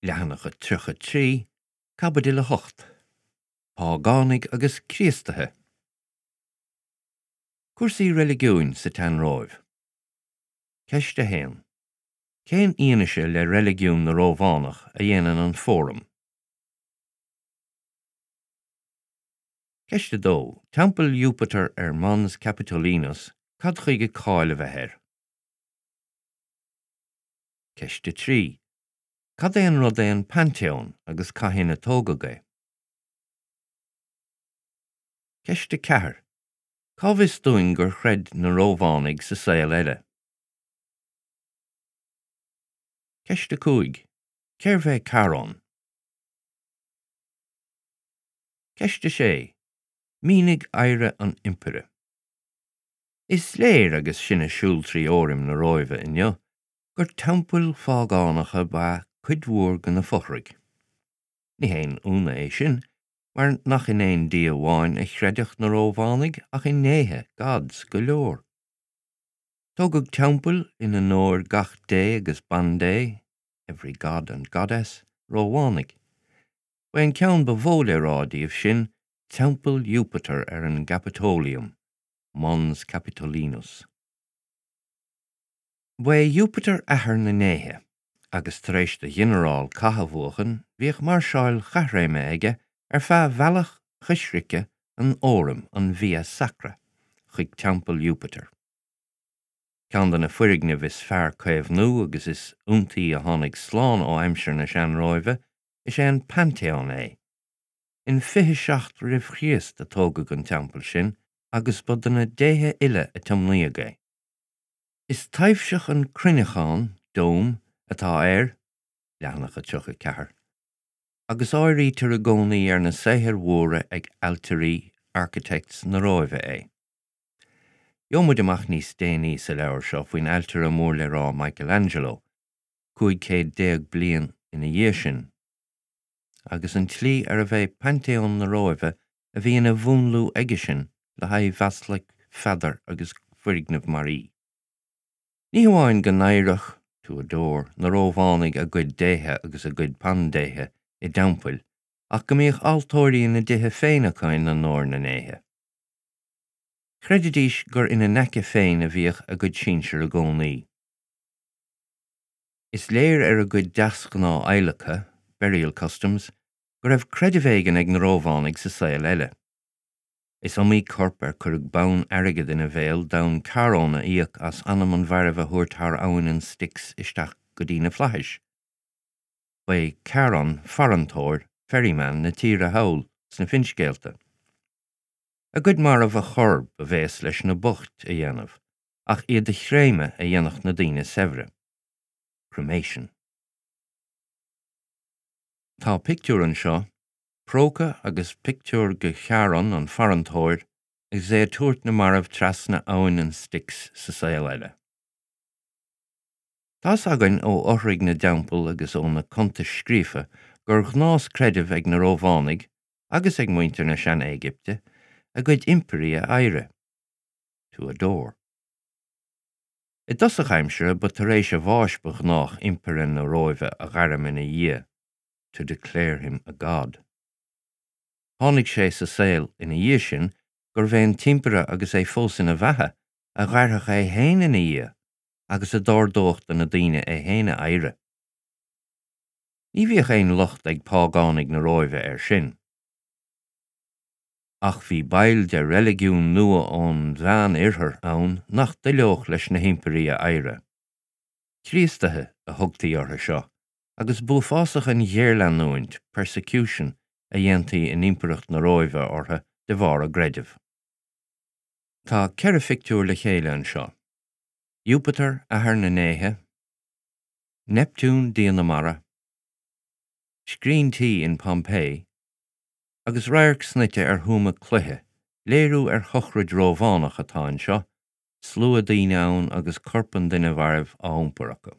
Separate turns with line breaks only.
Leathanach 33, Caibidil 8, Págánaigh agus Críostaithe. Cúrsaí reiligiúin sa tSean-Róimh. Ceist 1. Cén fhianaise le reiligiún na Rómhánach a dhéanann an Fóram? Ceist 2. Teampall Iúpatair ar Mons Capitolinus, cad chuige cáil a bheith air? Ceist 3. Cad é an rud é an Paintéón agus cathain a tógadh é? Ceist 4. Cá bhfios dúinn gur chreid na Rómhánaigh sa saol eile? Ceist 5. Cérbh é Charon? Ceist 6. Mínigh adhradh an Impire. Is léir agus sinn ag siúl trí Fhóraim na Róimhe inniu gur teampaill phágánacha ba ea cuid mhór de na fothraigh. Ní haon ionadh é sin, mar nach in aon dia amháin a chreideadh na Rómhánaigh ach i ndéithe, gods, go leor. Tógadh teampaill in onóir gach dé agus bandé, every god and goddess, Rómhánaigh. Ba é an ceann ba mhó le rá díobh sin Teampall Iúpatair ar an gCaipeatóiliam, Mons Capitolinus. Ba é Iúpatar athair na ndéithe, agus tar éis do ghinearál cath a bhuachan bhíodh máirseáil chaithréime aige ar feadh bhealach choisricthe an Fhóraim, an Via Sacra, chuig teampall Iúpatair. Ceann de na foirgnimh is fearr caomhnú agus is iontaí a tháinig slán ó aimsir na Sean-Róimhe is ea an Paintéón é. In 27 roimh Chríost a tógadh an teampall sin agus ba do na déithe uile a tiomnaíodh é. Is taibhseach an cruinneachán, dome, atá air, leathanach 34, agus áirítear i gcónaí ar na saothair mhóra ag ailtirí, architects, na Róimhe é. Gheobhaidh muid amach níos déanaí sa leabhar seo faoin ailtire mór le rá Michelangelo, 15 céad bliain ina dhiaidh sin, agus an tslí arbh é Paintéón na Róimhe a bhí ina mhúnlú aigesean le haghaidh Bhaslaic Pheadair agus foirgneamh mar í. Ní hamháin go n-adhradh, to adore, na Rómhánaigh a gcuid déithe agus a gcuid bandéithe i dteampaill ach go mbíodh altóirí ina dtithe féin acu in onóir na ndéithe. Chreididís gur ina n-aice féin a bhíodh a gcuid sinsear i gcónaí. Is léir ar a gcuid deasghnáth adhlactha, burial customs, go raibh creideamh éigin ag na Rómhánaigh sa saol eile. Is iomaí corp ar cuireadh bonn airgid ina bhéal d'fhonn Charon a íoc as anam an mhairbh a thabhairt thar abhainn an Styx isteach go dtí na flaithis. Ba é Charon farantóir, ferryman, na tíre thall sna finscéalta. A gcuid marbh a chur, ba bhéas leis na boicht a dhéanamh, ach iad a chréamadh a dhéanfadh na daoine saibhre. Cremation. Tá pictiúr anseo, próca agus pictiúr de Charon, an farantóir, agus é ag tabhairt na marbh trasna abhainn an Styx sa saol eile. Tá's againn ó fhothraigh na dteampall agus ó na cuntais scríofa gur ghnás creidimh ag na Rómhánaigh agus ag muintir na Sean-Éigipte a gcuid impirí a adhradh, to adore. I dtosach aimsire ba tar éis a bháis ba ghnách impire na Róimhe a ghairm ina dhia, to declare him a god. Tháinig sé sa saol ina dhiaidh sin gurbh é an t-impire agus é fós ina bheatha a ghairfeadh é féin ina dhia agus a d'ordódh do na daoine é féin a adhradh. Ní bhíodh aon locht ag págánaigh na Róimhe air sin. Ach bhí baill de reiligiún nua ón Mheán-Oirthear ann nach dtoileodh leis na himpirí a adhradh. Críostaithe a thugtaí orthu seo, agus b'uafásach an ghéarleanúint, persecution, a dhéantaí in Impireacht na Róimhe orthu de bharr a gcreidimh. Tá 4 phictiúr le chéile anseo, Iúpatar, athair na ndéithe, Neiptiún, dia na mara, scrín tí in Pompeii, agus radharc snoite ar thuama cloiche, léiriú ar shochraid Rómhánach atá anseo, slua daoine ann agus corp an duine mhairbh á iompar acu.